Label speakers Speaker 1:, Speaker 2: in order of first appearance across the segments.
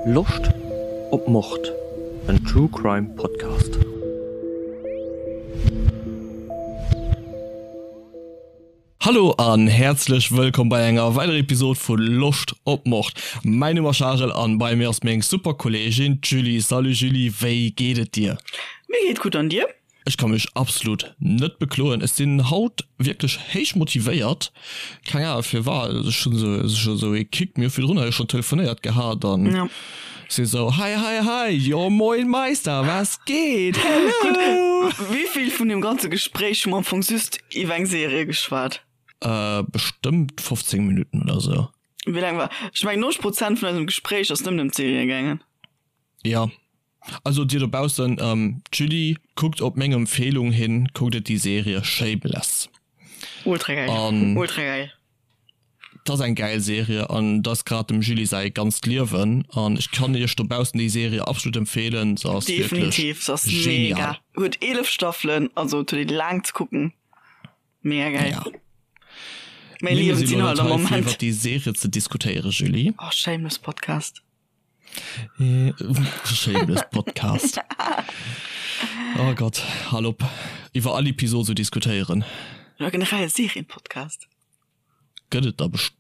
Speaker 1: Loscht op Mord? En True Crime Podcast. Hallo an häerzlech wëllkomm bei enger weiderer Episode vu Loscht op Mord. Mäin Numm ass Charel an bei mir ass meng super Kolleegin d'Julie. Salut Julie, wéi geet et dir?
Speaker 2: Mir geet gutt an dir?
Speaker 1: Ech ka mech absolut net bekloen. Ech sinn haut wierklech héich motivéiert. Keng Ahnung firwat. Ech hunn esou esou ee Kick. Mir hu virdrun jo schonn telefonéiert gehat an si esou, Hi, hi, hi, jo moin Meister, was geht, hello!
Speaker 2: Gutt, wéi vill vun deem ganze Gespréich hu mer am Fong just iwwer eng Serie geschwat?
Speaker 1: Bestëmmt 15 Minutten oder esou.
Speaker 2: Wéi laang war? Ech mengen 90 Prozent vun eisem Gespréich ass nëmmen ëm d'Serie gaangen.
Speaker 1: Jo. Also dir dobaussen, d'Julie kuckt op meng Empfehlung hin, kuckt et déi Serie Shameless.
Speaker 2: Ultra geil, an ultra geil.
Speaker 1: Dat ass eng gäil Serie an dat ass grad dem Julie säi ganzt Liewen an ech kann iech dobaussen déi Serie absolut empfehlen, se ass wierklech
Speaker 2: Definitiv, se ass
Speaker 1: genial.
Speaker 2: mega. Huet 11 Staffelen, also et huet ee laang ze kucken. Mega geil.
Speaker 1: Ja.
Speaker 2: Mäi
Speaker 1: Mee mir
Speaker 2: Liewen
Speaker 1: si
Speaker 2: sinn
Speaker 1: lo
Speaker 2: halt
Speaker 1: net
Speaker 2: am
Speaker 1: hei fir
Speaker 2: Moment.
Speaker 1: iwwer déi Serie ze diskutéieren, Julie.
Speaker 2: Oh, Shameless Podcast.
Speaker 1: Shameless Podcast. Oh Gott, hal op iwwer all Episod ze diskutéieren.
Speaker 2: Oder generell Serienpodcast.
Speaker 1: Gëtt et der best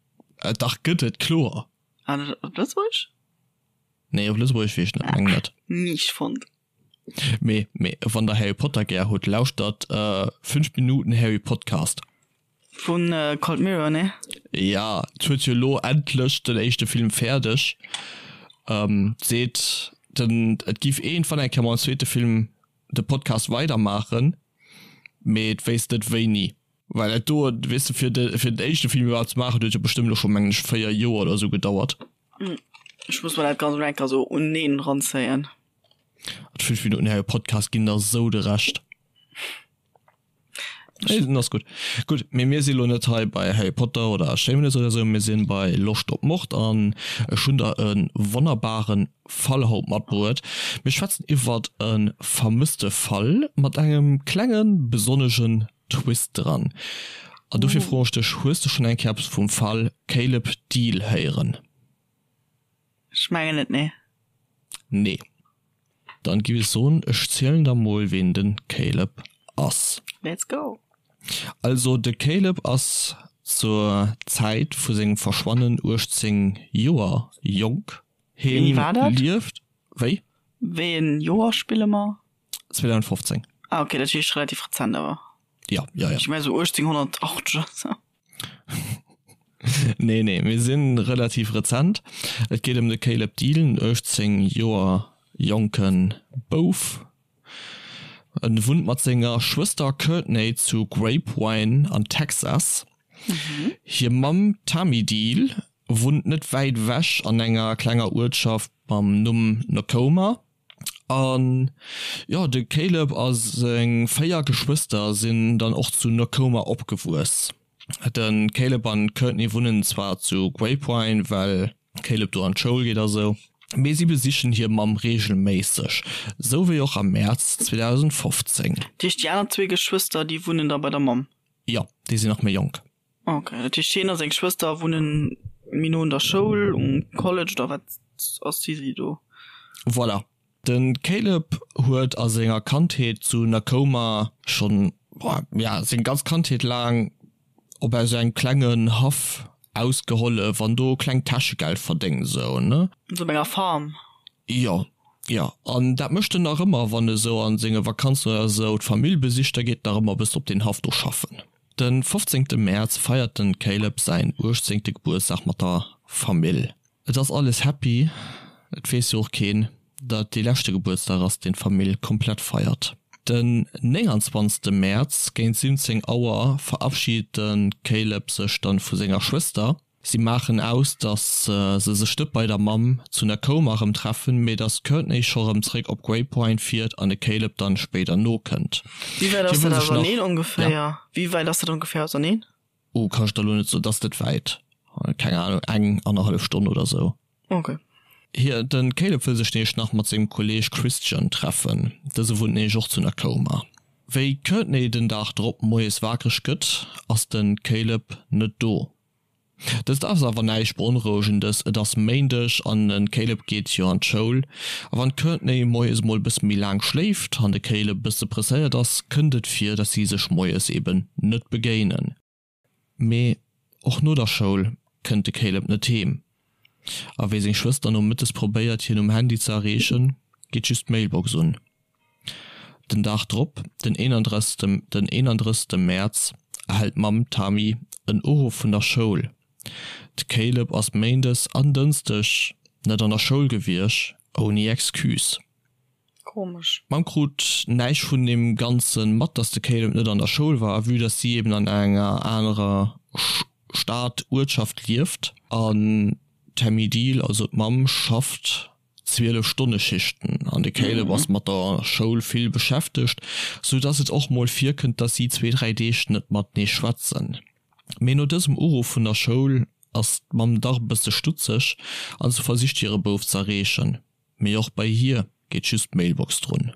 Speaker 1: äh, dach gëtt et, kloer.
Speaker 2: Ah, net op Lëtzebuergesch?
Speaker 1: Nee, op Lëtzebuergesch weess ech net, meng net.
Speaker 2: Nicht fonnt.
Speaker 1: Mee, mee wann der Harry Potter gär hutt, lauschtert äh, 5 Minuten Harry Podcast.
Speaker 2: Vun Cold Mirror, ne?
Speaker 1: Ja, et huet jo elo endlech den éischte Film fäerdeg. Seet den, et giff iergendwann eng Kéier mam zweete Film de Podcast weidermaachen, mee et wéisst net wéini. Well dat do, weess de, fir de, fir den éischte Film iwwerhaapt ze maachen, huet jo bestëmmt elo scho mengen ech 4 Joer oder sou gedauert.
Speaker 2: Ech muss mer dat ganz elo eng Kéier sou uneen ranzéien.
Speaker 1: 5 Minuten Harry Podcast ginn der sou de Rescht. Nee, ass gutt. Gutt, mee mir si lo net hei bei Harry Potter oder Shameless oder sou, mir sinn bei Loscht op Mord an ech hunn der e wonnerbare Fall haut matbruet. Mir schwätzen iwwert e vermësste Fall mat engem klengen, besonnegen Twist dran. An dofir froen ech dech, Hues de schonn eng Kéier eppes vum Fall Caleb Deal héieren?
Speaker 2: Ech mengen net, nee.
Speaker 1: Nee. Dann giff ech soen, ech zielen der mol ween den Caleb ass.
Speaker 2: Let's go!
Speaker 1: Also de Caleb ass zur Zäit vu sengem Verschwannen 18 Joer jonk.
Speaker 2: Wéini
Speaker 1: Heen
Speaker 2: war dat?
Speaker 1: lieft, wéi?
Speaker 2: Wéi en Joer spille mer?
Speaker 1: 2015.
Speaker 2: Ah ok, dat heescht relativ rezent awer.
Speaker 1: Ja, ja, ja.
Speaker 2: Ech mengen sou 1880 oder sou.
Speaker 1: Nee, nee, mir sinn relativ rezent. Et geet ëm de Caleb Deal, en 18 Joer jonke Bouf. En wunnt mat senger Schwëster Courtney zu Grapevine an Texas. Hir Mamm Tammy Deal wunnt net wäit ewech an enger klenger Uertschaft mam Numm Nocoma. An jo, de Caleb a seng 4 Geschwëster sinn dann och zu Nocoma opgewuess. De Caleb an d'Courtney wunnen zwar zu Grapevine, well Caleb do an d'Schoul geet a sou, mee si besichen hir Mamm reegelméisseg, sou wéi och am Mäerz 2015.
Speaker 2: Dat heescht déi aner zwee Geschwëster, déi wunnen da bei der Mamm?
Speaker 1: Jo, déi sinn nach méi jonk.
Speaker 2: Ok, dat heescht hien a seng Schwëster wunnen méi no un der Schoul, um College oder wat ass si si do?
Speaker 1: Voilà. De Caleb huet a senger Kandheet zu Nacoma schonn, ja, seng ganz Kandheet laang op esou engem klengen Haff ausgehollef an do klengt Täschegeld verdéngt esou, ne?
Speaker 2: Sou op enger Farm?
Speaker 1: Jo, jo. An dat mécht en nach ëmmer, wann e sou a senge Vakanzen oder esou d'Famill besicht, da geet en nach ëmmer e bëssen op deen Haff do schaffen. De 15 Mäerz feiert den Caleb säin 18. Gebuertsdag mat der Famill. Et ass alles happy, et weess jo och keen, dat et dee leschte Gebuertsdag ass, deen d'Famill komplett feiert. Den 29. Mäerz géint 17 Auer verabschid de Caleb sech dann vu senger Schwëster. Si maachen aus, dass se sech net bei der Mamm zu Nacoma erëm treffen, mee dass d'Courtney scho rëm zréck op Grapevine fiert an de Caleb dann spéider nokënnt.
Speaker 2: Wéi wäit ass dat auserneen ongeféier? Wéi wäit ass dat ongeféier auserneen?
Speaker 1: Oh, kann ech der lo net soen. Dat ass net wäit. Keng Ahnung, eng, annerhallef Stonn oder sou.
Speaker 2: Ok.
Speaker 1: Hie, de Caleb wëll sech nämlech nach mat sengem Kolleeg Christian treffen. Dëse wunnt nämlech och zu Nacoma. Wéi d'Courtney den Dag drop moies wakereg gëtt, ass de Caleb net do. Dëst ass awer näischt Beonrouegendes, et ass Méindeg an den Caleb geet jo an d'Schoul. A wann d'Courtney moies mol bësse méi laang schléift an de Caleb bësse presséiert ass, kënnt et vir, dass si sech moies eben net begéinen. Mee och no der Schoul kënnt de Caleb net heem. A wéi seng Schwëster nomëttes probéiert hien um Handy ze erreechen, geet just d'Mailbox un. Den Dag drop, den 31 den 31. Mäerz, erhält d'Mamm Tami en Uruff vun der Schoul, De Caleb ass méindes an dënschdeg net an der Schoul gewiescht, ouni Excuse.
Speaker 2: Komesch.
Speaker 1: D'Mamm krut näischt vun deem Ganze mat, dass de Caleb net an der Schoul war, a vue dass si eben an enger anerer Stad, Uertschaft lieft an d'Tammy Deal, also d'Mamm, schafft 12 Stonne Schichten an de Caleb ass mat der Schoul vill beschäftegt, sou dass et och mol virkënnt, dass si zwee, dräi Deeg net matenee schwätzen. Mee no dësem Uruff vun der Schoul ass d'Mamm dach e bësse stutzeg an se versicht hire Bouf ze erreechen, mee och bei hir geet just d'Mailbox drun.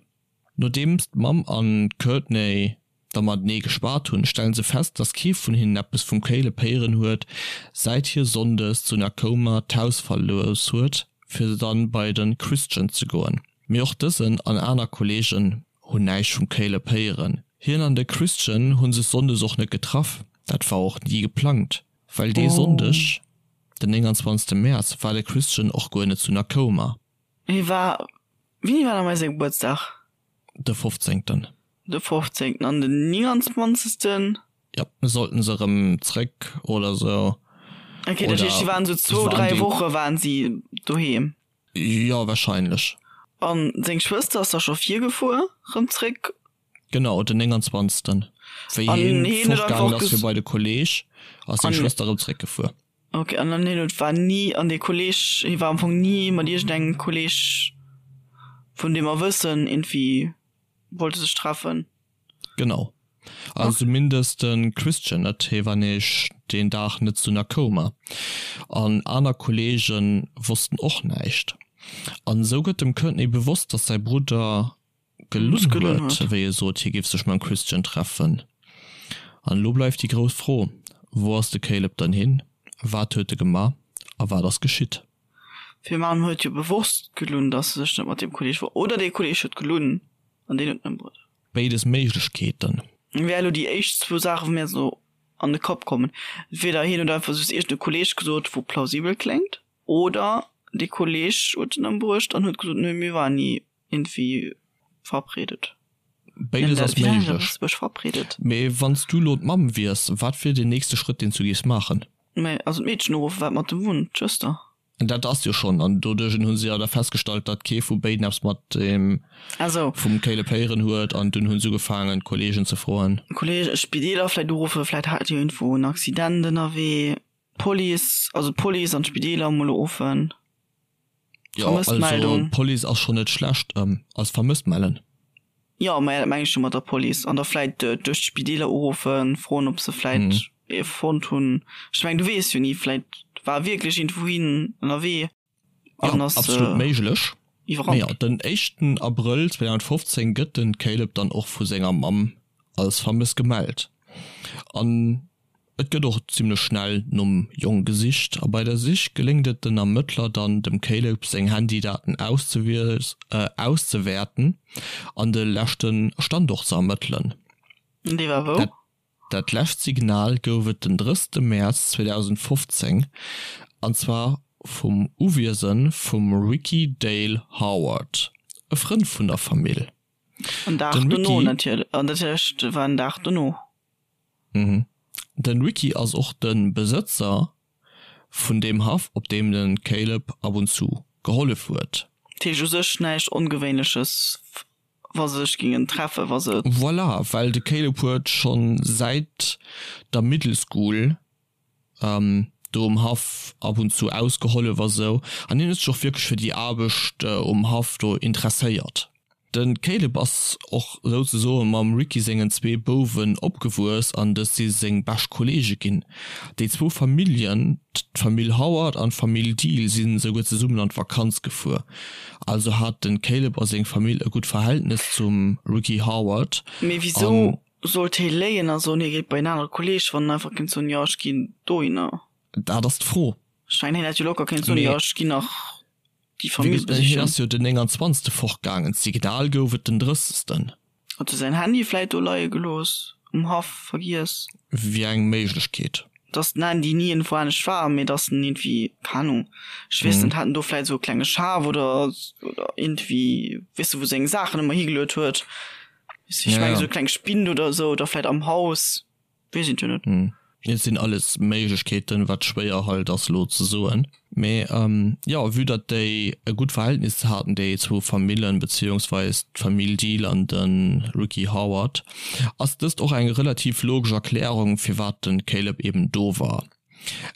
Speaker 1: Nodeems d'Mamm an d'Courtney da matenee geschwat hunn, stellen se fest, dass kee vun hinnen eppes vum Caleb héieren huet, säit hie sonndes zu Nakoma d'Haus verlooss huet, fir dann bei de Christian ze goen. Mee och dësen an aner Kolleegen hunn näischt vum Caleb héieren. Hien an de Christian hu sech sonndes och net getraff, dat war och ni geplangt, well dee Sonndeg, den 29 Mäerz, war de Christian och guer net zu Nakoma.
Speaker 2: Hie war, wéini war nach mei säi Gebuertsdag?
Speaker 1: De 15.
Speaker 2: De 15. An den 29.
Speaker 1: Jo, sollten se erëm zréck oder sou.
Speaker 2: Ok, dat heescht, si waren sou zwou, dräi Woche waren si doheem.
Speaker 1: Jo, wahrscheinlech.
Speaker 2: An seng Schwëster ass da scho virgefuer, rëm zréck?
Speaker 1: Genau, den 29. Wéi hien fortgaangen ass fir bei de Kolleg, ass seng Schwëster erëm zréckgefuer.
Speaker 2: Ok, an dann hien huet war ni an dee Kolleg, hie war am Fong ni mat iergendengem Kolleg, vun deem mer wëssen, iergendwéi wollt e sech treffen.
Speaker 1: Genau. Also zumindest de Christian net, hie war nämlech deen Dag net zu Nakoma. An aner Kollege wossten och näischt. An esou gëtt dem Courtney bewosst, datt säi Brudder gelunn huet, wéi e sot, hie géif sech mam Christian treffen. An elo bleift déi grouss Fro, Wou ass de Caleb dann hin? Wat huet e gemaach? A wat ass geschitt?
Speaker 2: Fir Mamm huet jo bewosst gelunn, dass se sech net mat deem Kolleg wor, oder dee Kolleg huet gelunn an deen huet en ëmbruet.
Speaker 1: Béides Méiglechkeeten.
Speaker 2: Wär elo déi éischt zwou Saachen, wou mir esou an de Kapp kommen. Entweder hien huet einfach just iergend e Kolleg gesot, wou plausibel kléngt, oder dee Kolleg huet en ëmbruecht an huet gesot, Nö, mir waren ni Irgendwie verabredet.
Speaker 1: Béides ass méiglech. Mee wann s du elo d'Mamm wiers, wat wier deen nächste Schrëtt, deen s du géifs maachen?
Speaker 2: Mä also d'Meedchen uruffen, wat mat dem wunnt, d'Schwëster.
Speaker 1: Dat ass jo schonn. An doduerch hunn se jo da festgestallt, datt kee vu béiden eppes mat deem vum Caleb héieren huet. An dunn hu se ugefaangen, d'Kolleegen ze froen.
Speaker 2: Kolleegen, Spideeler vläicht uruffen, vläicht hat jo iergendwou en Accident ënnerwee. D'Police, also d'Police an d'Spideeler emol uruffen.
Speaker 1: Jo, also
Speaker 2: Vermësstmeldung.
Speaker 1: d'Police ass schonn net schlecht, als vermësst mellen.
Speaker 2: Jo, maja, dat meng ech jo mat der Police. An da vläit duerch d'Spideeler uruffen, froen, ob se vläit ee fonnt hunn. Ech meng, du weess jo ni, vläit war e wierklech iergendwouhin ënnerwee
Speaker 1: Jo, an ass absolut méiglech. Mee jo, iwwerrannt. den éischten Abrëll 2015 gëtt den Caleb dann och vu senger Mamm als vermësst gemellt. An Et gëtt och zimmlech schnell nom Jong gesicht a bei der Sich geléngt et den Ermëttler dann dem Caleb seng Handydaten auszewäerten an de leschte Standort ze ermëttelen.
Speaker 2: Dee war wou?
Speaker 1: Dat lescht Signal gouf et den 30 Mäerz 2015 an zwar vum Uwiese vum Ricky Dale Howard, e Frënd vun der Famill.
Speaker 2: En Dag dono natierlech, an dat heescht war en Dag dono.
Speaker 1: Den Ricky ass och de Besëtzer vun deem Haff, op deem de Caleb ab und zu gehollef huet.
Speaker 2: Dat heescht u sech näischt Ongewéinleches, wa se sech gingen treffen, wa se.
Speaker 1: Voilà, well de Caleb huet schonn säit der Middle School do um Haff ab und zu ausgehollef a sou, an hien huet sech och wierklech fir déi Aarbecht um Haff do interesséiert. De Caleb ass och souzesoe mam Ricky sengen zwee Bouwen opgewuess an dës si seng bescht Kolleege ginn. Déi zwou Familljen, d'Famill Howard an d'Famill Deal si souguer zesummen an d'Vakanz gefuer. Also hat de Caleb a seng Famill e gutt Verhältnes zum Ricky Howard
Speaker 2: Mee wisou sollt hie léien a soen, hie geet bei en anere Kolleeg, wann en einfach kéint soen, jo ech ginn dohinner?
Speaker 1: Dat ass d'Fro.
Speaker 2: Ech mengen, hien hätt jo locker kéint soen, jo, ech ginn nach déi Famill
Speaker 1: besichen. Hien ass jo den 29. fortgaangen, d'Signal gouf et den 30.
Speaker 2: Huet e säin Handy vläit do leie gelooss, um Haff vergiess?
Speaker 1: Wier eng Méiglechkeet.
Speaker 2: Dass den Handy ni iergendwou anescht war, mee dass en iergendwéi, keng Ahnung, ech weess net, hat en do vläit esou e klenge Schaf oder oder iergendwéi, weess de, wou seng Saachen ëmmer higeluet huet? Weess ech mengen esou e kleng Spind oder esou oder vläit am Haus. Weess een jo net.
Speaker 1: Et sinn alles Méiglechkeeten, wat schwéier halt ass elo ze soen. Mee jo, vue datt déi e gutt Verhältnis haten, déi zwou Famillen, beziehungsweis d'Famill Deal an de Ricky Howard, ass dëst och eng relativ logesch Erklärung, firwat de Caleb eben do war.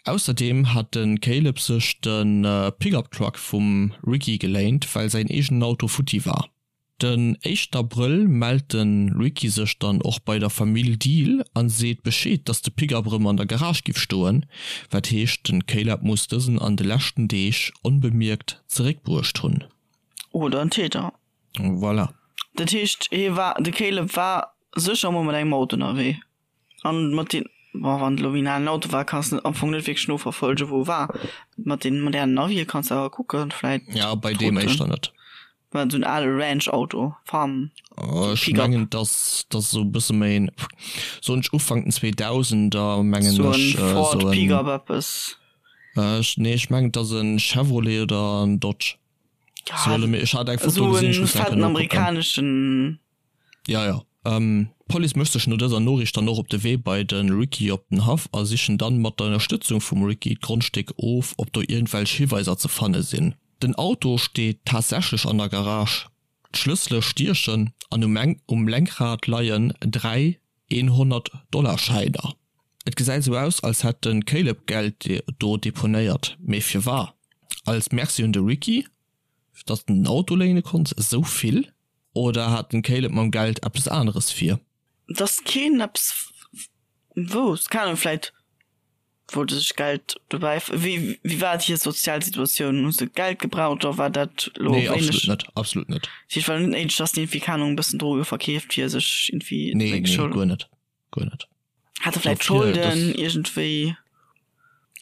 Speaker 1: Ausserdeem hat de Caleb sech de Pickup Truck vum Ricky geléint, well säin eegenen Auto futti war. Den éischten Abrëll mellt de Ricky sech dann och bei der Famill Diehl an seet Bescheed, dass de Pickup erëm an der Garage giff stoen, wat heescht den Caleb muss dësen an de leschten Deeg onbemierkt zeréckbruecht hunn.
Speaker 2: Oder en Täter.
Speaker 1: Voilà.
Speaker 2: Dat heescht hie war, de Caleb war sécher mol mat engem Auto ënnerwee. An mat den, bon, wann et elo wéi en alen Auto war, kanns de am Fong net wierklech noverfollegen, wou e war. Mat den modernen Navië kanns de awer kucken, vläit.
Speaker 1: Ja, bei deem éischter net.
Speaker 2: War esou en ale Ranch-Auto, Farm.
Speaker 1: Ech mengen, dass dass esou e bësse méi en, soen ech, Ufank den 2000er, mengen
Speaker 2: ech. Esou en Ford Pickup eppes.
Speaker 1: Ech, nee, ech mengen, et ass e Chevrolet oder en Dodge.
Speaker 2: Ja, ech hat eng Foto gesinn, ech muss eng Kéier nokucken. Esou e fetten amerikaneschen.
Speaker 1: Ja, ja. D'Police mécht sech no dëser Noriicht dann och op de Wee bei de Ricky op den Haff a sichen dann mat der Ënnerstëtzung vum Ricky d'Grondstéck of, ob do iergendwelch Hiweiser ze fanne sinn. Den Auto steet tatsächlech an der Garage, d'Schlëssele stiechen an um Lenkrad leien 3 100 Dollar Schäiner. Et gesäit sou aus, als hätt de Caleb Geld do deponéiert, mee firwar? Als Merci un de Ricky, datt en den Auto léine konnt? Esou vill? Oder hat den Caleb mam Geld eppes aneres vir?
Speaker 2: Dass keen eppes wousst, keng Ahnung, vläit wollt e sech Geld dobäi, wéi wéi war hir sozial Situatioun, hu se Geld gebraucht oder war dat
Speaker 1: lo Nee, absolut wéineg? net, absolut net.
Speaker 2: Dat heescht, war net néideg, dass en iergendwéi, keng Ahnung, e bëssen Droge verkeeft fir sech iergendwéi
Speaker 1: Nee, seng nee, Schoul. guer net, guer net.
Speaker 2: Hat e vläit Scholden iergendwéi?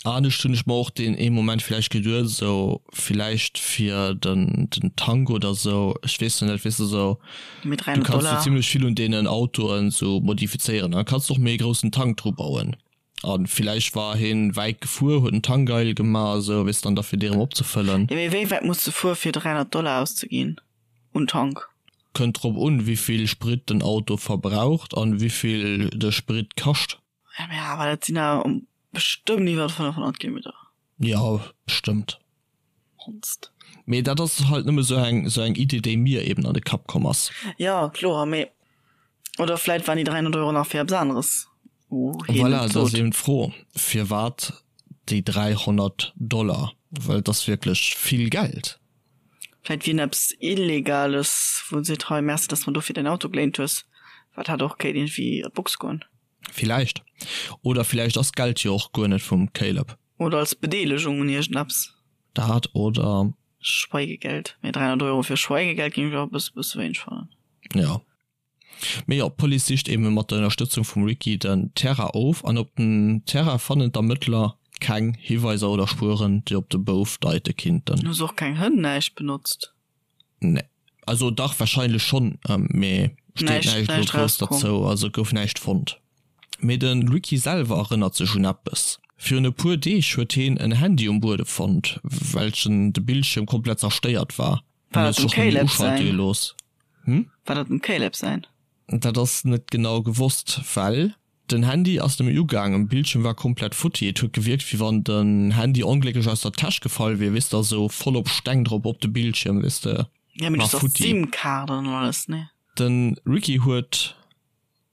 Speaker 1: Anescht hunn ech mer och deen ee Moment vläicht geduet, esou villäicht fir den den Tank oder esou, ech weess jo net, weess de esou,
Speaker 2: Mee du 300
Speaker 1: kanns jo
Speaker 2: Dollar.
Speaker 1: zimlech vill un deenen Autoen esou modifizéieren, da kanns de och méi e groussen Tank dru bauen. A villäicht war hien wäit gefuer, huet den Tank eidel gemaach esou, weess de, an da fir dee erëm opzefëllen.
Speaker 2: Jo, mee wéi wäit muss de fuere fir 300 Dollar auszeginn un Tank?
Speaker 1: Kënnt drop un, wéivill Sprit den Auto verbraucht an wéivill de Sprit kascht.
Speaker 2: Ja, mee awer dat sinn awer bestëmmt iwwer 500 Kilometer.
Speaker 1: Jo, bestëmmt.
Speaker 2: Mannst.
Speaker 1: Mee dat ass halt nëmme sou eng, sou eng Idee, déi mir eben an de Kapp komm ass.
Speaker 2: Jo, kloer, mee oder vläit waren déi 300 Euro nach fir eppes aneres,
Speaker 1: wou hien Voilà, et dat ass sot. eben d'Fro, firwat déi 300 Dollar, well et ass wierklech vill Geld.
Speaker 2: Vläit wier eppes Illegales, wou en seet, hei, merci, dass de mer dofir däin Auto geléint hues, wat hätt och kéint iergendwéi an d'Box goen.
Speaker 1: Villäicht. Oder villäicht ass d'Geld jo och guer net vum Caleb.
Speaker 2: Oder als Bedeelegung un iergendeppes.
Speaker 1: Dat oder.
Speaker 2: Schweigegeld. Mee 300 Euro fir Schweigegeld géing ech och e bësse bësse wéineg fannen.
Speaker 1: Jo. Mee jo, d'Police sicht eben mat der Ënnerstëtzung vum Ricky den Terrain of an op dem Terrain fannen d'Ermëttler keng Hiweiser oder Spueren, déi op de Bouf deite kinnten.
Speaker 2: Hu se och keng Hënn, näischt benotzt?
Speaker 1: Nee. Also dach, wahrscheinlech schonn, mee steet näischt elo grouss derzou, also gouf näischt fonnt. Mee de Ricky selwer erënnert sech un eppes. Virun e puer Deeg huet heen en Handy um Buedem fonnt, welchen de Bildschierm komplett zerstéiert war.
Speaker 2: War dat dem Caleb säin? Hm? War dat dem Caleb säin?
Speaker 1: Dat ass net genau gewosst, well Den Handy ass nemmi ugaangen, Bildschirm war komplett futti, et huet gewierkt wéi wann den Handy onglécklech aus der Täsch gefall wier, weess de, sou voll op Steng drop op de Bildschirm, weess de,
Speaker 2: Ja, mee
Speaker 1: war
Speaker 2: du hues
Speaker 1: futti.
Speaker 2: d'Sim-Kaart an alles, nee?
Speaker 1: Den Ricky huet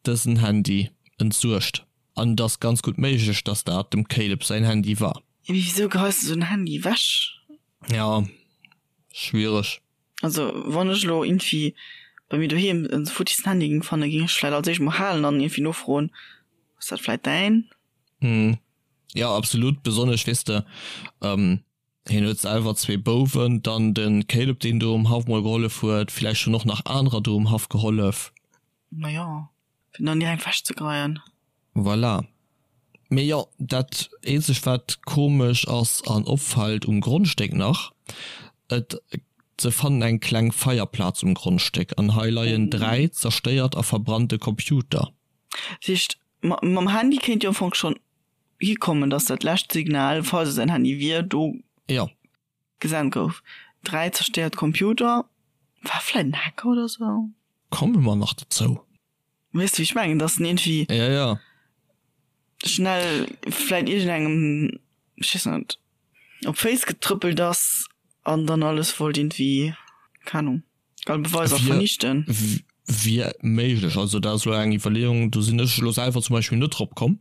Speaker 1: dësen Handy entsuergt an et ass ganz gutt méiglech dass dat dem Caleb säin Handy war.
Speaker 2: Ja, mee wisou geheis de sou en Handy ewech?
Speaker 1: Ja, schwiereg.
Speaker 2: Also wann ech elo iergendwéi bei mir doheem en futtissen Handy géing fannen, géing ech vläit als éischt mol halen an iergendwéi nofroen, ass dat vläit däin?
Speaker 1: Hm, jo absolut, besonnesch weess de, hien huet selwer zwee Bouwen, dann de Caleb deen do um Haff mol gehollef huet, villäicht hunn och nach anerer do um Haff gehollef.
Speaker 2: Ma jo, fir en dann direkt wechzegreien.
Speaker 1: Voilà. Mee jo, dat eenzegt wat komesch ass an opfällt um Grondstéck nach, et se fannen eng kleng Feierplaz um Grondstéck an hei leien 3 zerstéiert a verbrannte Computer.
Speaker 2: Dat heescht, mam Handy kéint jo am Fong schonn hikommen, dass dat lescht Signal, falls et säin Handy wier, do
Speaker 1: Jo.
Speaker 2: gesent gouf. 3 zerstéiert Computer, war vläit en Hacker oder sou?
Speaker 1: Komme mer nach dozou.
Speaker 2: Weess de wéi ech mengen, dass en iergendwéi.
Speaker 1: Ja, ja.
Speaker 2: Schnell vläit iergendengem, ech weess net, op d'Féiss getrëppelt ass an dann alles wollt iergendwéi, keng Ahnung, all Beweiser vernichten.
Speaker 1: Wier méiglech. Also dat ass elo eng Iwwerleeung, do sinn ech elo selwer zum Beispill net drop komm.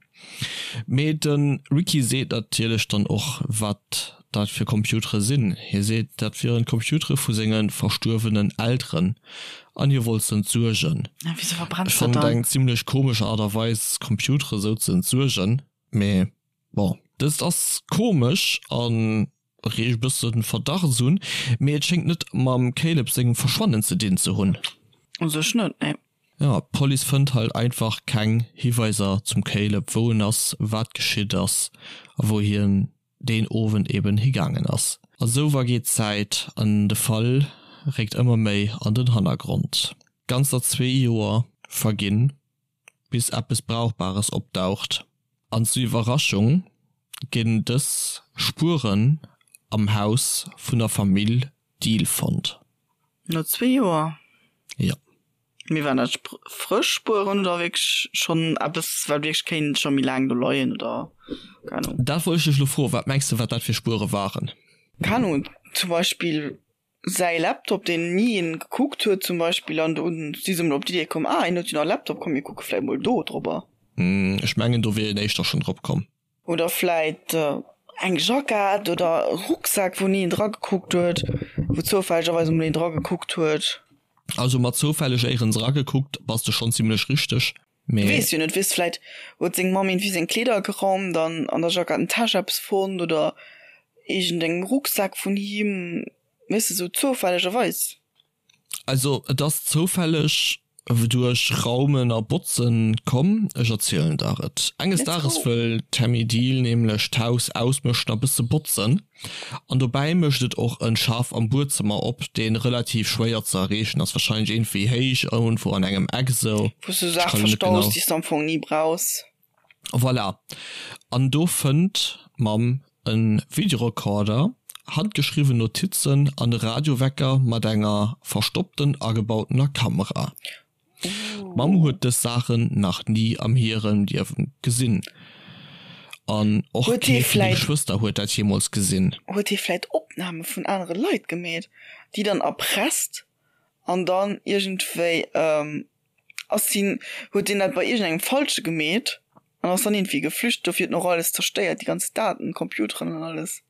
Speaker 1: Mee de Ricky seet natierlech dann och, wat dat fir Computere sinn. Hie seet, dat wieren d'Computere vu senge verstuerwenen Elteren an hie wollt se entsuergen.
Speaker 2: Ech
Speaker 1: fannen et eng zimmlech komesch Aart a Weis, Computere sou ze entsuergen, mee bon. Dëst ass komesch a reegt e bësse Verdacht un, mee et schéngt net mam Caleb sengem Verschwannen ze dinn ze hunn.
Speaker 2: U sech net, nee.
Speaker 1: Jo, d'Police fënnt halt einfach keng Hiweiser zum Caleb, wou en ass, wat geschitt ass a wou hien deen Owend eben higaangen ass. A sou vergeet d'Zäit an de Fall réckt ëmmer méi an den Hannergrond. Ganzer zwee Joer verginn, bis eppes Brauchbares opdaucht. An zu Iwwerraschung ginn dës Spueren am Haus vun der Famill Diehl fonnt.
Speaker 2: No zwee Joer?
Speaker 1: Jo.
Speaker 2: Mee waren dat frësch Spueren oder wierklech schonn eppes, wat wierklech kéint scho méi laang do leien oder
Speaker 1: keng Ahnung? Dat wollt ech dech elo froen. Wat mengs de, wat dat fir Spuere waren?
Speaker 2: Keng Ahnung, zum Beispill säi Laptop, deen ni een gekuckt huet zum Beispill, an do si se mol op d'Idee komm, ah, een huet jo nach e Laptop, komm mir kucke vläicht mol do drobber.
Speaker 1: Ech mengen, do wier een éischter schonn drop komm.
Speaker 2: Oder vläit eng Jackett oder e Rucksak, wou ni een dra gekuckt huet, wou zoufällegerweis emol een dra gekuckt huet.
Speaker 1: Also mat zoufälleg éierens eragekuckt bass de schonn zimlech richteg,
Speaker 2: mee. Weess jo net, weess vläit huet seng Mamm iergendwéi seng Kleeder geraumt an an der Jacketten-Täsch eppes fonnt oder iergendeng Rucksak vun him, weess de, sou zoufällegerweis.
Speaker 1: Also et ass zoufälleg duerch Raumen a Botzen komm. Ech erzielen der et. Enges Dages wëll d'Tammy Deal nämlech d'Haus ausmëschen a bësse botzen. An dobäi mécht et och en Schaf am Buedzëmmer op, deen relativ schwéier ze erreechen ass, wahrscheinlech iergendwéi héich iergendwou an engem Eck esou.
Speaker 2: Wou s du Saache verstaus, déi s du am Fong ni brauchs.
Speaker 1: Voilà. An do fënnt d'Mamm e Videorecorder, handgeschriwwen Notizen an e Radiowecker mat enger verstoppten agebautener Kamera. D'Mamm huet dës Saachen nach ni am hirem Liewen gesinn. An och kee vun de Geschwëster huet dat jeemools gesinn.
Speaker 2: Huet hie vläit Opname vun anere Leit gemeet, déi dann erpresst an dann iergendwéi Ass hien, huet deen dat bei iergendengem Falsche gemeet an ass dann iergendwéi geflücht. Dofir huet en och alles zerstéiert, déi ganz Daten, Computeren an alles.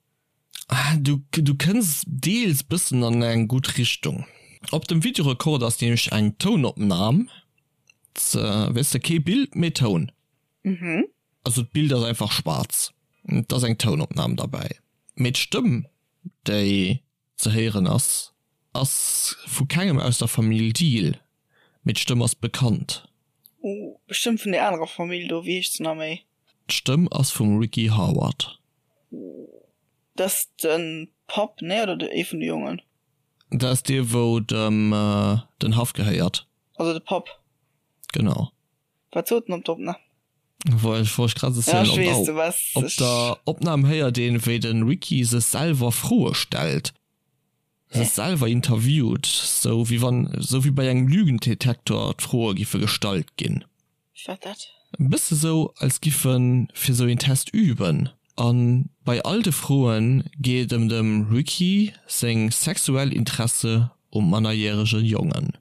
Speaker 1: Du, du kënns deels bëssen an eng gutt Richtung. Op dem Videorekorder ass nämlech eng Tounopnam ze, weess de, kee Bild, mee Toun.
Speaker 2: Mhm.
Speaker 1: Also d'Bild ass einfach schwaarz, et ass eng Tounopnam derbäi, mee d'Stëmm, déi ze héieren ass, ass vu kengem aus der Famill Diehl, mee d'Stëmm ass bekannt.
Speaker 2: Oh, bestëmmt vun där anerer Famill do, wéi heescht se nach méi?
Speaker 1: D'Stëmm ass vum Ricky Harward.
Speaker 2: Dat ass de Papp, nee, oder de ee vun de Jongen?
Speaker 1: Dat ass dee wou dem den Haff gehéiert.
Speaker 2: Also de Papp.
Speaker 1: Genau.
Speaker 2: Wat sot en op der Opnam?
Speaker 1: Wollt ech grad
Speaker 2: erzielen.
Speaker 1: Ja, op der Opnam héiert een, wéi de Ricky sech selwer Froe stellt, sech selwer interviewt, sou wéi wann, sou wéi bei engem Lügendetektor d'Froe giffe gestallt ginn.
Speaker 2: Wat dat?
Speaker 1: E bësse sou, als giff en fir sou een Test üben. A bei all de Froe geet et ëm dem Ricky seng sexuell Interesse um mannerjärege Jongen.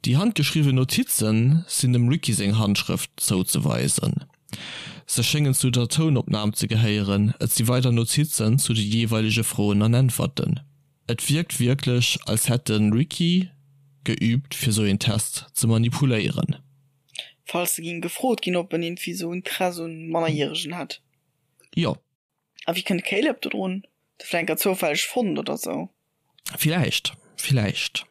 Speaker 1: Déi handgeschriwwen Notizen sinn dem Ricky seng Handschrëft zouzeweisen. Se schéngen zu der Tounopnam ze gehéieren, et si weider Notizen zu de jeeweilege Froen an Äntwerten. Et wierkt wierklech, als hätt de Ricky geüübt fir sou een Test ze manipuléieren.
Speaker 2: Falls e ging gefrot ginn, ob en iergendwéi sou Interesse un Mannerjäregen hätt.
Speaker 1: Jo.
Speaker 2: A wéi kënnt de Caleb do drun? De vläicht enker zoufälleg fonnt oder sou?
Speaker 1: Villäicht, villäicht.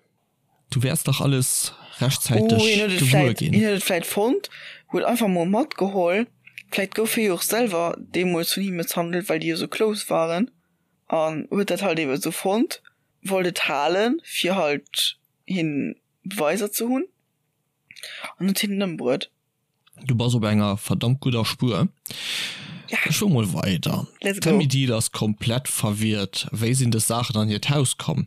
Speaker 1: Du wäerts dach alles rechtzäiteg
Speaker 2: gewuer ginn. Hien huet et vläicht fonnt, huet einfach mol matgeholl. Vläit gouf hie jo och selwer deemools vun him mësshandelt, well déi jo sou close waren an huet dat halt eben sou fonnt, wollt et halen fir halt hien Beweiser ze hunn an huet hien ëmbruet.
Speaker 1: Du bass op enger verdammt gudder Spuer.
Speaker 2: Ja.
Speaker 1: Ech fuer mol weider.
Speaker 2: Let's go.
Speaker 1: D'Tammy Deal ass komplett verwirrt. Wéi sinn des Saachen an hiert Haus komm?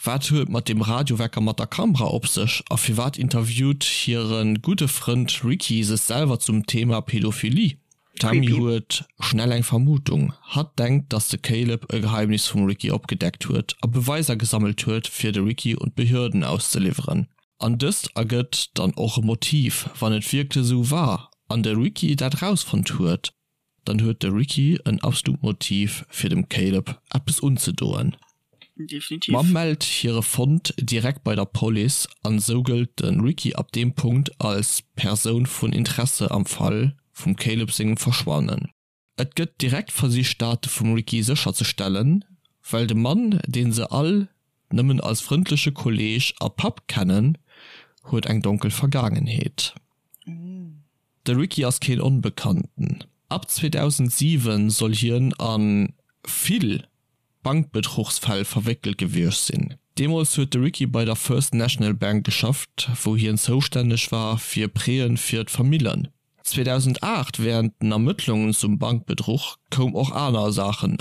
Speaker 1: Wat huet mat dem Radiowecker mat der Kamera op sech? A firwat interviewt hire gudde Frënd Ricky sech selwer zum Thema Pädophilie? D'Tammy
Speaker 2: Creepy.
Speaker 1: huet schnell eng Vermutung. Hatt denkt, dass de Caleb e Geheimnis vum Ricky opgedeckt huet a Beweiser gesammelt huet, fir de Ricky un d'Behörden auszeliwweren. An dëst ergëtt dann och e Motiv, wann et wierklech esou war an de Ricky dat rausfonnt huet, dann huet de Ricky en absolut Motiv fir dem Caleb eppes unzedoen.
Speaker 2: Definitiv.
Speaker 1: D'Mamm mellt hire Fond direkt bei der Police an esou gëllt de Ricky ab deem Punkt als Persoun vun Interesse am Fall vum Caleb sengem Verschwannen. Et gëtt direkt versicht Date vum Ricky sécherzestellen, well de Mann, deen se all nëmmen als frëndleche Kolleeg a Papp kennen, huet eng donkel Vergaangenheet. De Ricky ass keen Onbekannten. Ab 2007 soll hien a vill Bankbedruchsfäll verwéckelt gewiescht sinn. Deemools huet de Ricky bei der First National Bank geschafft, wou hien zoustänneg war fir Prêten fir d'Famillen. 2008, wärend den Ermëttlungen zum Bankbedruch, koum och aner Saachen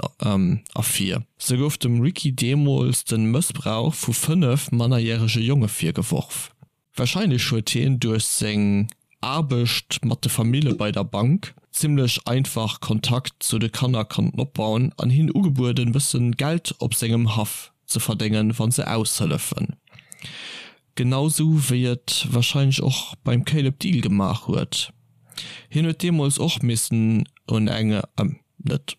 Speaker 1: ervir. Sou gouf dem Ricky deemools de Mëssbrauch vu 5 mannerjärege Jonge virgeworf. Warscheinlech huet hien duerch seng Aarbecht mat de Famille bei der Bank zimmlech einfach Kontakt zu de Kanner konnten opbauen an hinnen ugebueden, bëssen Geld op sengem Haff ze verdéngen, wann se aushëllefen. Genau sou wéi et warscheinlech och beim Caleb Deal gemaach huet. Hien huet deemools och missen un enge net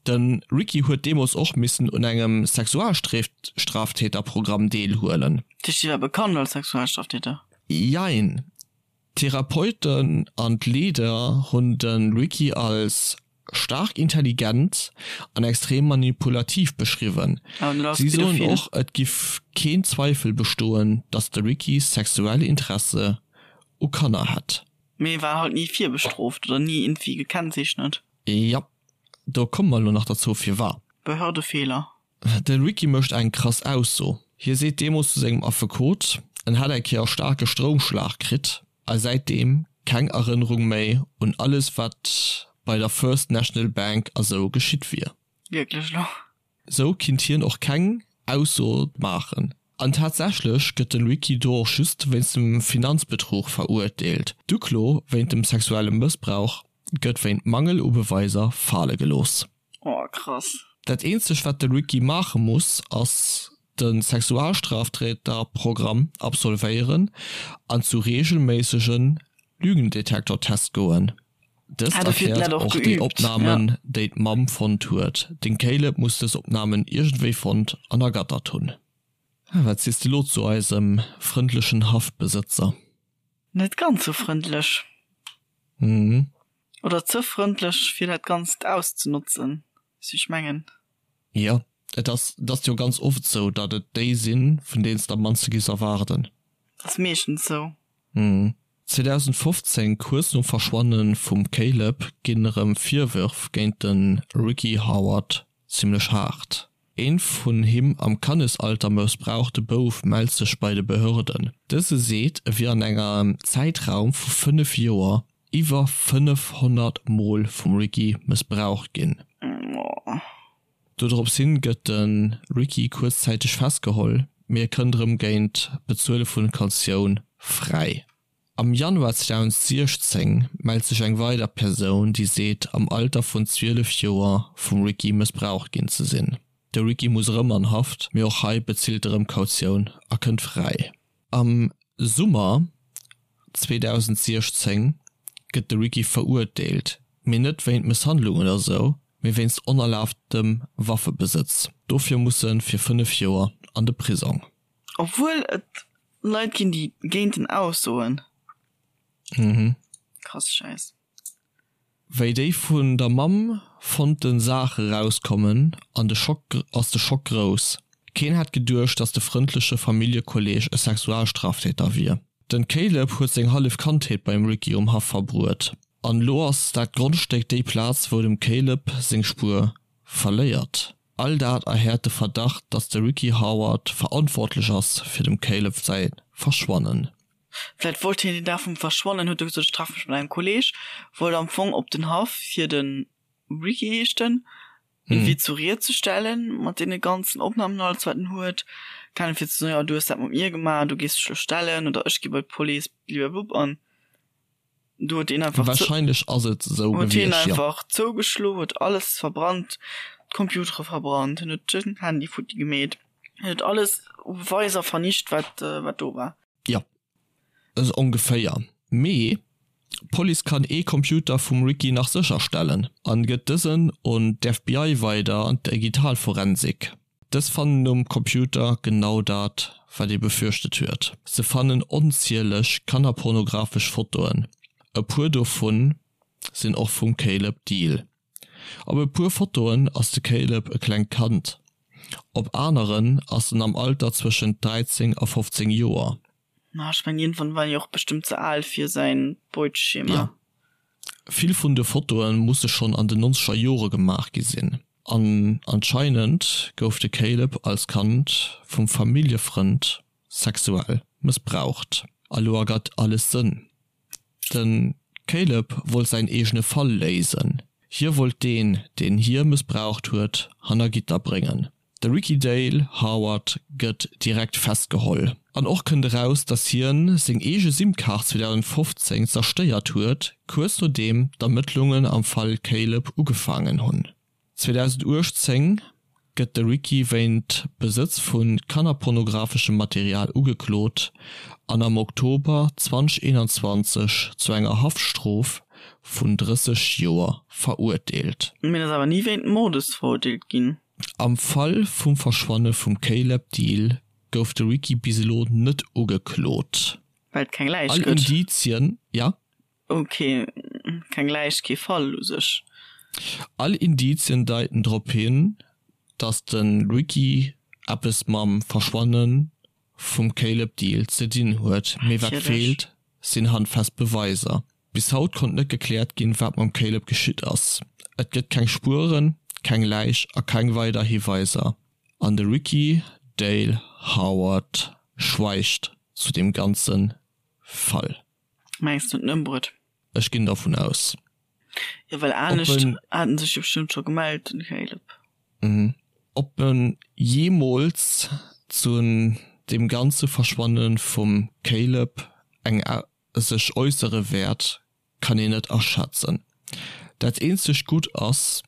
Speaker 1: de Ricky huet deemools och missen un engem Sexualstraftäterprogramm deelhuelen.
Speaker 2: Dat heescht, hie war bekannt als Sexualstraftäter?
Speaker 1: Jein. D'Therapeuten an d'Leeder hunn de Ricky als staark intelligent an extrem manipulativ beschriwwen. Si soen och, et giff keen Zweifel bestoen, datt de Ricky sexuell Interesse u Kanner hätt.
Speaker 2: Mee war halt ni virbestrooft oder ni iergendwéi gekennzeechnet.
Speaker 1: Jo, do komme mer elo nach derzou, firwar.
Speaker 2: Behördefeeler.
Speaker 1: De Ricky mécht eng krass Ausso. Hie seet deemools zu sengem Affekot, en hätt eng Kéier staarke Stroumschlag kritt a säitdeem keng Erënnerung méi un alles wat bei der First National Bank a sou geschitt wier.
Speaker 2: Wierklech elo?
Speaker 1: Sou kinnt hien och keng Ausso maachen. An tatsächlech gëtt de Ricky do och just wéinst dem Finanzbetruch verurteelt. D'Uklo wéint dem sexuelle Mëssbrauch gëtt wéint Mangel u Beweiser fale gelooss.
Speaker 2: Oh krass.
Speaker 1: Dat eenzegt wat de Ricky maache muss ass de Sexualstraftäterprogramm absolvéieren an zu reegelméissege Lügendetektortest goen. Dëst
Speaker 2: Ah, dofir huet
Speaker 1: erkläert
Speaker 2: d'Lett och
Speaker 1: och déi
Speaker 2: geübt, ja.
Speaker 1: Opnamen déi d'Mamm fonnt huet. Den Caleb muss dës Opnamen iergendwéi fonnt an ergattert hunn. Wat sees de lo zu eisem frëndlechen Haffbesëtzer?
Speaker 2: Net ganz sou frëndlech.
Speaker 1: Mhm.
Speaker 2: Oder ze frëndlech fir dat Ganzt auszenotzen, wéi ech mengen.
Speaker 1: Jo, et ass, et ass jo ganz oft esou, datt et déi sinn, vun deenen s de am mannste giffs erwaarden.
Speaker 2: Dat ass meeschtens esou.
Speaker 1: Mhm. 2015, kuerz nom Verschwanne vum Caleb, ginn erëm Virwërf géint de Ricky Howard zimmlech haart. Een vun him am Kannesalter mëssbrauchte Bouf mellt sech bei de Behörden. Dëse seet, e wier an engem Zäitraum vu 5 Joer iwwer 500 Mol vum Ricky mëssbraucht ginn. Dodrops hin gëtt de Ricky kuerzzäiteg festgeholl, mee e kënnt erëm géint Bezuele vun Kautioun fräi. Am Januar 2016 mellt sech eng weider Persoun, déi seet, am Alter vun 12 Joer vum Ricky mëssbraucht ginn ze sinn. De Ricky muss erëm an Haft, mee och hei bezilt erëm Kautioun a kënnt fräi. Am Summer 2016 gëtt de Ricky verurteelt, mee net wéint Mësshandlung oder sou, mee wéinst onerlaabtem Waffebesëtz. Dofir muss e fir 5 Joer an de Prisong.
Speaker 2: Obwuel et Leit ginn déi géint en aussoen.
Speaker 1: Mhm.
Speaker 2: Krass Schäiss.
Speaker 1: Wéi déi vun der Mamm fonnten Saache rauskommen an de Schock ass de Schock grouss. Keen hätt geduecht dass de frëndleche Familljekolleg e Sexualstraftäter wier. Den Caleb huet seng hallef Kandheet beim Ricky um Haff verbruet. An elo ass dat Grondstéck déi Plaz, wou dem Caleb seng Spuer verléiert. All dat erhäert de Verdacht, datt de Ricky Howard verantwortlech ass fir dem Caleb säi Verschwannen.
Speaker 2: Vläit wollt hien den Dag vum Verschwannen, huet e gesot, ech treffe mech mat engem Kolleeg, wollt am Fong op den Haff fir de Ricky heescht en, iergendwéi zur Ried ze stellen mat deene ganzen Opnamen an alles wat en huet, keine Ahnung, fir ze soen, jo du hues dat mat mir gemaach, du gees dech elo stellen oder ech gi bei d'Police, bliblablubb an do huet deen einfach
Speaker 1: zou, Wahrscheinlech ass et esou
Speaker 2: huet hien gewiescht, jo. einfach zougeschlo, huet alles verbrannt, d'Computere verbrannt, hien huet den Handy futti gemeet, hien huet alles u Beweiser vernicht wat wat do war.
Speaker 1: Jo, esou ongeféier. Mee d'Police kann ee Computer vum Ricky nach sécherstellen an gëtt dësen un d'FBI weider an d'Digitalforensik. Dës fannen um Computer genau dat, wat ee befürchtet huet. Se fannen onzieleg kannerpornografesch Fotoen, e puer dovun sinn och vum Caleb Deal. Op e puer Fotoen ass de Caleb e klengt Kand, op aneren ass en am Alter zwëschent 13 a 15 Joer.
Speaker 2: Ma ech mengen iergendwann war en jo och bestëmmt ze al fir säin Beuteschema.
Speaker 1: Jo. Vill vun de Fotoe musse schonn an den nonzeger Jore gemaach gi sinn. An anscheinend gouf de Caleb als Kand vum Familljefrënd sexuell mëssbraucht. A lo ergëtt alles Sënn. De Caleb wollt säin eegene Fall léisen. Hie wollt deen, deen hie mëssbraucht huet, hanner Gitter bréngen. De Ricky Dale Howard gëtt direkt festgeholl. An och kënnt eraus, datt hien seng eege SIM-Kaart 2015 zerstéiert huet, kuerz nodeem d'Ermëttlungen am Fall Caleb ugefaangen hunn. 2018 gëtt de Ricky wéint Besëtz vu kannerpornografeschem Material ugeklot an am Oktober 2021 zu enger Haftstrof vun 30 Joer verurteelt.
Speaker 2: Mee en ass awer ni wéint Mordes verurteelt ginn.
Speaker 1: Am Fall vum Verschwanne vum Caleb Deal gouf de Ricky bis elo net ugeklot.
Speaker 2: Well et keng Läich
Speaker 1: All
Speaker 2: gëtt.
Speaker 1: Indizien, ja?
Speaker 2: Ok, keng Läich, kee Fall u sech.
Speaker 1: All Indizien deiten drop hin, datt de Ricky eppes mam Verschwanne vum Caleb Deal ze dinn huet, mee wat feelt, sinn handfest Beweiser. Bis haut konnt net gekläert ginn, wat mam Caleb geschitt ass. Et gëtt keng Spueren, keng Läich a keng weider Hiweiser. An de Ricky Dale Howard schweigt zu deem ganze Fall.
Speaker 2: Mengs du den ëmbruet?
Speaker 1: Ech ginn dervun aus.
Speaker 2: Jo, well anescht hat en sech jo bestëmmt scho gemellt, den Caleb.
Speaker 1: Ob en jeemools zu deem ganze Verschwanne vum Caleb eng sech äussere wäert, kann een net aschätzen. Dat eenzegt Gutt ass,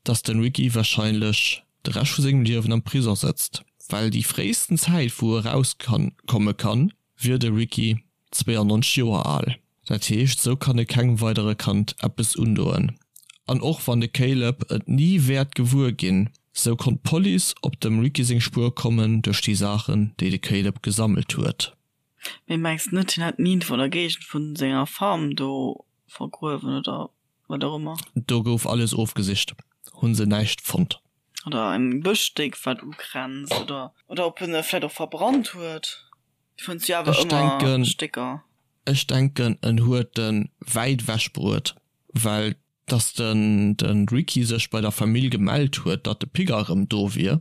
Speaker 1: dass den Ricky wahrscheinlech de Rescht vu sengem Liewen am Prison sëtzt, well déi fréisten Zäit wou e raus komme kann, wier de Ricky 92 Joer al. Dat heescht, sou kann e kengem weidere Kand eppes undoen. An och wann de Caleb et ni wäert gewuer ginn, sou konnt d'Police op dem Ricky seng Spuer kommen duerch déi Saachen, déi de Caleb gesammelt huet.
Speaker 2: Mee mengs de net hien hätt en iergendwou an der Géigend vun senger Farm do vergruewen oder wat och ëmmer?
Speaker 1: Do gouf alles ofgesicht, hunn se näischt fonnt.
Speaker 2: Oder en Bëschstéck wat ugrenzt oder oder ob en e vläit och verbrannt huet. Du fënns jo awer
Speaker 1: Ech
Speaker 2: ëmmer
Speaker 1: denken,
Speaker 2: Stécker.
Speaker 1: ech denken en huet en wäit ewech bruet, well Dass den de Ricky sech bei der Famill gemellt huet, datt de Pigger erëm do wier,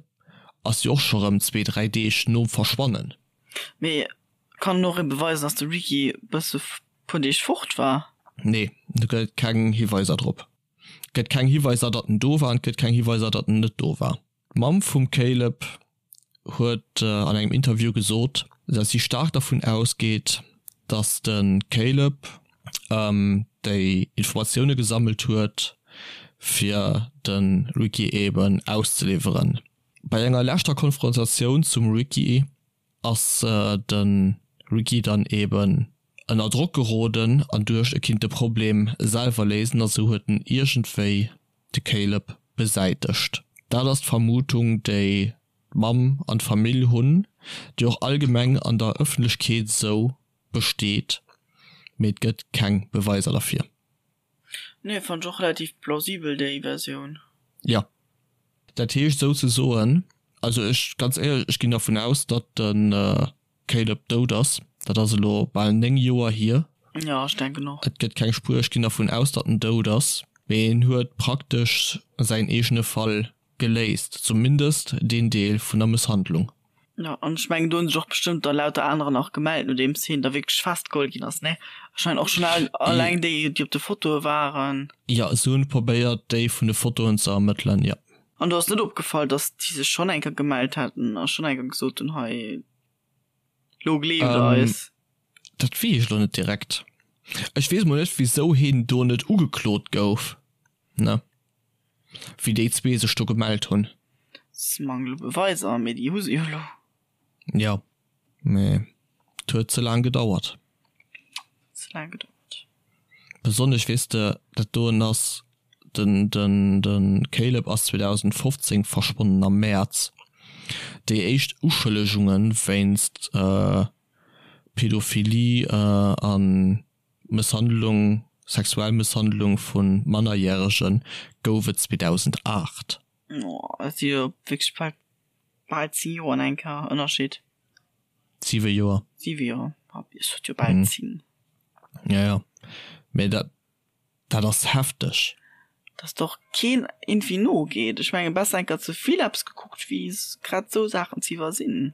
Speaker 1: ass jo och scho rëm zwee, dräi Deeg nom Verschwannen.
Speaker 2: Mee kann en och ebe weisen, dass de Ricky bësse puer Deeg fort war?
Speaker 1: Nee, do gëtt et keng Hiweiser drop. Et gëtt keng Hiweiser, datt en do war an et gëtt keng Hiweiser, datt en net do war. D'Mamm vum Caleb huet an engem Interview gesot, dass si staark dervun ausgeet, dass de Caleb déi Informatioune gesammelt huet, fir de Ricky eben auszeliwweren. Bei enger leschter Konfrontatioun zum Ricky ass de Ricky dann eben ënner Drock geroden an duecht, e kinnt de Problem selwer léisen a sou huet en iergendwéi de Caleb besäitegt. Dat ass d'Vermutung, déi d'Mamm an d'Famill hunn, déi och allgemeng an der Ëffentlechkeet esou besteet, mee et gëtt keng Beweiser derfir.
Speaker 2: Nee, fannt ech och relativ plausibel déi Versioun.
Speaker 1: Jo, dat heescht souzesoen, also ech, ganz éierlech, ech ginn dervun aus, datt de Caleb dout ass. Dat ass elo bal 9 Joer hier.
Speaker 2: Jo, ech denken och.
Speaker 1: Et gëtt keng Spuer, ech ginn dervun aus, datt en dout ass, mee en huet praktesch säin eegene Fall geléist, zumindest deen Deel vun der Mësshandlung.
Speaker 2: Jo, an ech mengen, do hunn sech och bestëmmt der lauter anerer nach gemellt, nodeems hien da wierklech festgeholl ginn ass, ne? Ech mengen och schonn alleng déi, déi op de Fotoe waren.
Speaker 1: Jo, se hunn probéiert, déi vun de Fotoen ze ermëttelen, jo.
Speaker 2: An do ass net opgefall, datt déi sech schonn eng Kéier gemellt haten a schonn eng Kéier gesot hunn, hei, lo gleeft eis.
Speaker 1: Dat weess ech elo net direkt. Ech weess mol net, wisou hien do net ugeklot gouf, ne? Wéi déi zwee sech do gemellt hunn.
Speaker 2: S, Mangel u Beweiser, mee déi hu se jo elo.
Speaker 1: Jo, mee et huet ze laang gedauert.
Speaker 2: Ze laang gedauert.
Speaker 1: Besonnesch, weess de, dat doen ass, den, den, de Caleb ass 2015 verschwonnen am Mäerz. Déi éischt Uschëllegunge wéinst Pedophilie an Mësshandlung, sexuell Mësshandlung vu Mannerjärege gouf et 2008.
Speaker 2: Oh, dat si jo wierklech bal, bal 10 Joer an enker Ënnerscheed.
Speaker 1: 7 Joer.
Speaker 2: 7 Joer, ech sot jo bal 10.
Speaker 1: Ja, ja, mee dat, Dat ass hefteg.
Speaker 2: Dass do och keen irgendwie nogeet. Ech mengen besser enker ze vill eppes gekuckt wéi grad esou Saachen ze iwwersinn.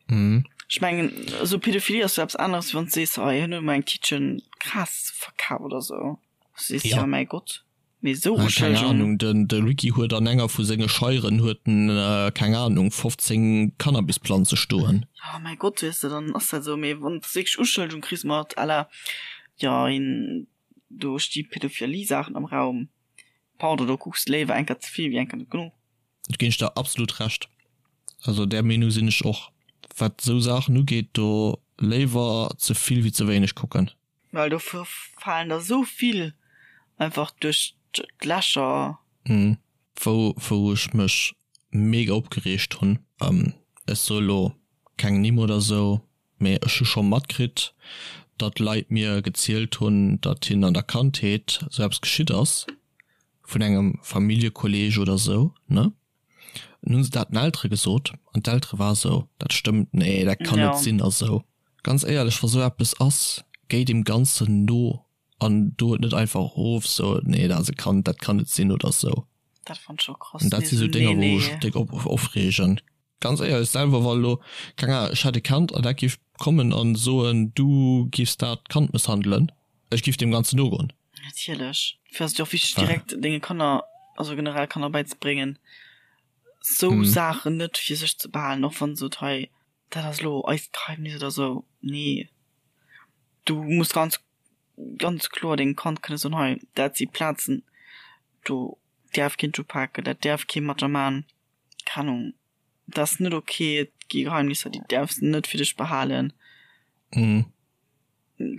Speaker 2: Ech mengen esou Pädophilie ass jo eppes aneres wéi wann s de sees, hei hien huet mer eng Tiitchen Gras verkaf oder esou. Du sees jo mäi Gott, mee esou
Speaker 1: Keng Uschëllegung. Ahnung, den de Ricky huet an enger vu senge Scheieren huet en keng Ahnung 15 Cannabisplanze stoen.
Speaker 2: Jo mäi Gott, weess de, dann ass dat esou. Mee wann s de wierklech Uschëllegung kriss mat à la Jo, een, do sti Pädophilie-Saachen am Raum. Pardon, do kucks de léiwer eng Kéier ze vill wéi eng Kéier net genuch.
Speaker 1: Do ginn ech der absolut Recht. Also där Meenung sinn ech och. Wat esou Saachen ugeet, do léiwer ze vill wéi ze wéineg kucken.
Speaker 2: Well do falen der esou vill einfach duerch d'Lächer.
Speaker 1: Wou wou ech mech mega opgereegt hunn, ech soe lo keng Nimm oder esou, Mee ech hu scho matkritt, datt Leit mir gezielt hunn, datt hinnen an der Kandheet esou eppes geschitt ass, vun engem Familljekolleeg oder esou, ne? An hunn se dat den Eltere gesot an d'Eltere ware sou, dat stëmmt, nee, dat kann net sinn a sou. Ganz éierlech, wa sou eppes ass, géi deem Ganzen no an do et net einfach of, sou, nee, dat ass e Kand, dat kann net sinn oder sou.
Speaker 2: Dat fannt ech och krass.
Speaker 1: An dat si sou Dénger, wou ech déck opreegen. Ganz éierlech, selwer wa lo, keng Ahnung, ech hätt e Kand an dat giff kommen an soen, du giffs dat Kand mësshandelen, ech giff deem Ganzen nogoen.
Speaker 2: Natierlech. Dofir ass et jo och wichteg direkt denge Kanner, also generell Kanner bäizebréngen, sou Saachen net fir sech ze behalen, och wann se sot, hei dat ass elo eist Geheimnis oder sou. Nee, du muss ganz, ganz kloer dengem Kand kënne soen, hei dat si Plazen, do däerf keen upaken, dat däerf kee mat der man. Keng Ahnung, dat ass net ok, et gi Geheimnisser, déi däerfs de net fir dech behalen.
Speaker 1: Mhm.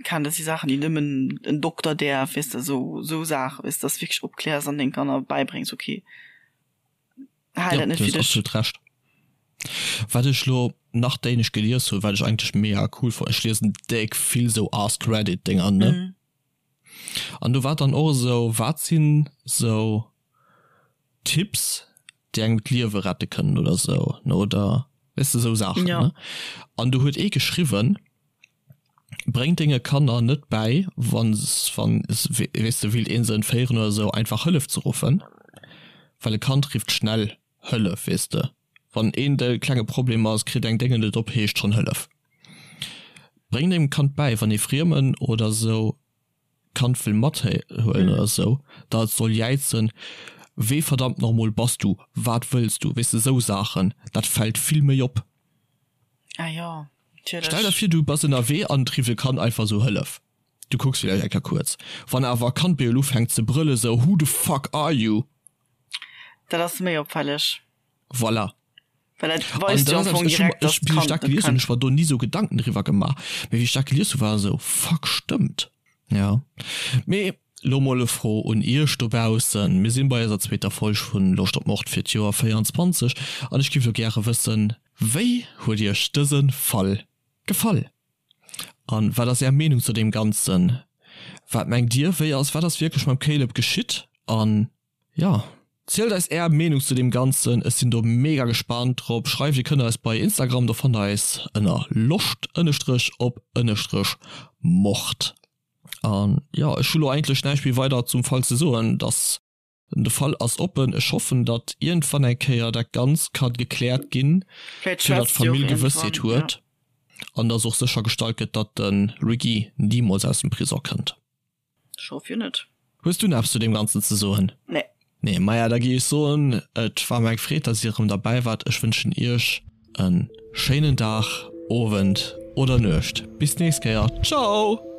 Speaker 2: Keng, dat si Saachen, déi nëmmen en Dokter däerf, weess de, esou, esou Saachen, weess de, dass wierklech opkläers an deng Kanner bäibréngs, ok,
Speaker 1: hal dat net fir dech. Jo, du hues absolut Recht. Wat ech lo nach d'éinescht gelies hunn, wat ech eigentlech mega cool fannen, ech liesen déck vill esou Ask Reddit Dénger, ne? An do war dann och esou, wat sinn esou Tipps, déi engem d'Liewe rette kënnen oder esou, ne, oder weess de, esou Saachen, ne? An do huet ee geschriwwen, Bréng denge Kanner net bäi, wann, wann, weess de, wéilt ee se entféieren oder esou, einfach Hëllef ze ruffen, well e Kand rifft schnell Hëllef, weess de. Wann een de klenge Problem ass, kritt eng Déngen et op, heescht schonn Hëllef. Bréng dengem Kand bäi, wann ee Friemen oder esou d'Kand wëll mathuelen oder esou, datt et soll jäizen, Wee verdammt nach emol bass du? Wat wëlls du? Weess de, esou Saachen, dat fält vill méi op.
Speaker 2: Ah jo,
Speaker 1: natierlech. Stell der vir, du bass ënnerwee an et rifft e Kand einfach esou Hëllef. Du kucks villäicht eng Kéier kuerz. Wann awer e Kand bei elo ufänkt ze brëllen, esou, Who the fuck are you?
Speaker 2: Dat ass méi opfälleg.
Speaker 1: Voilà.
Speaker 2: Well dat weist jo am Fong direkt,
Speaker 1: dass d'Kand net kennt. Ech hu mer do ni sou Gedanken driwwer gemaach, mee wéi ech dat gelies hu war ech esou, fuck, stëmmt. Jo. Mee lo mol e Fro un iech dobaussen, Mir sinn bei eiser zweeter Folg vun Loscht op Mord fir d'Joer 24 an ech giff lo gäre wëssen, wéi huet iech dëse Fall gefall? An wat ass är Meenung zu deem Ganzen? Wat mengt dir, wéi ass, wat ass wierklech mam Caleb geschitt? An jo. Zielt eis är Meenung zu deem Ganzen, ech sinn do mega gespaant drop. Schreift, dir kënnt eis bei Instagram, do fannt der eis ënner loscht ënnestrech op ënnestrech mord. An jo, ech hu lo eigentlech näischt méi weider zum Fall ze soen, dass de Fall ass oppen. Ech hoffen, datt iergendwann eng Kéier dat Ganzt ka gekläert ginn, fir datt d'Famill Gewëssheet huet an datt och séchergestallt gëtt, datt de Ricky nimools aus dem Prisong kënnt.
Speaker 2: Ech hoff jo net.
Speaker 1: Hues du nach eppes zu deem Ganzen ze soen?
Speaker 2: Nee.
Speaker 1: Nee, maja, da gi ech soen, et war mir eng Freed, dass dir erëm derbäi waart. Ech wënschen iech e schéinen Dag, Owend oder Nuecht. Bis d'nächst Kéier. Ciao!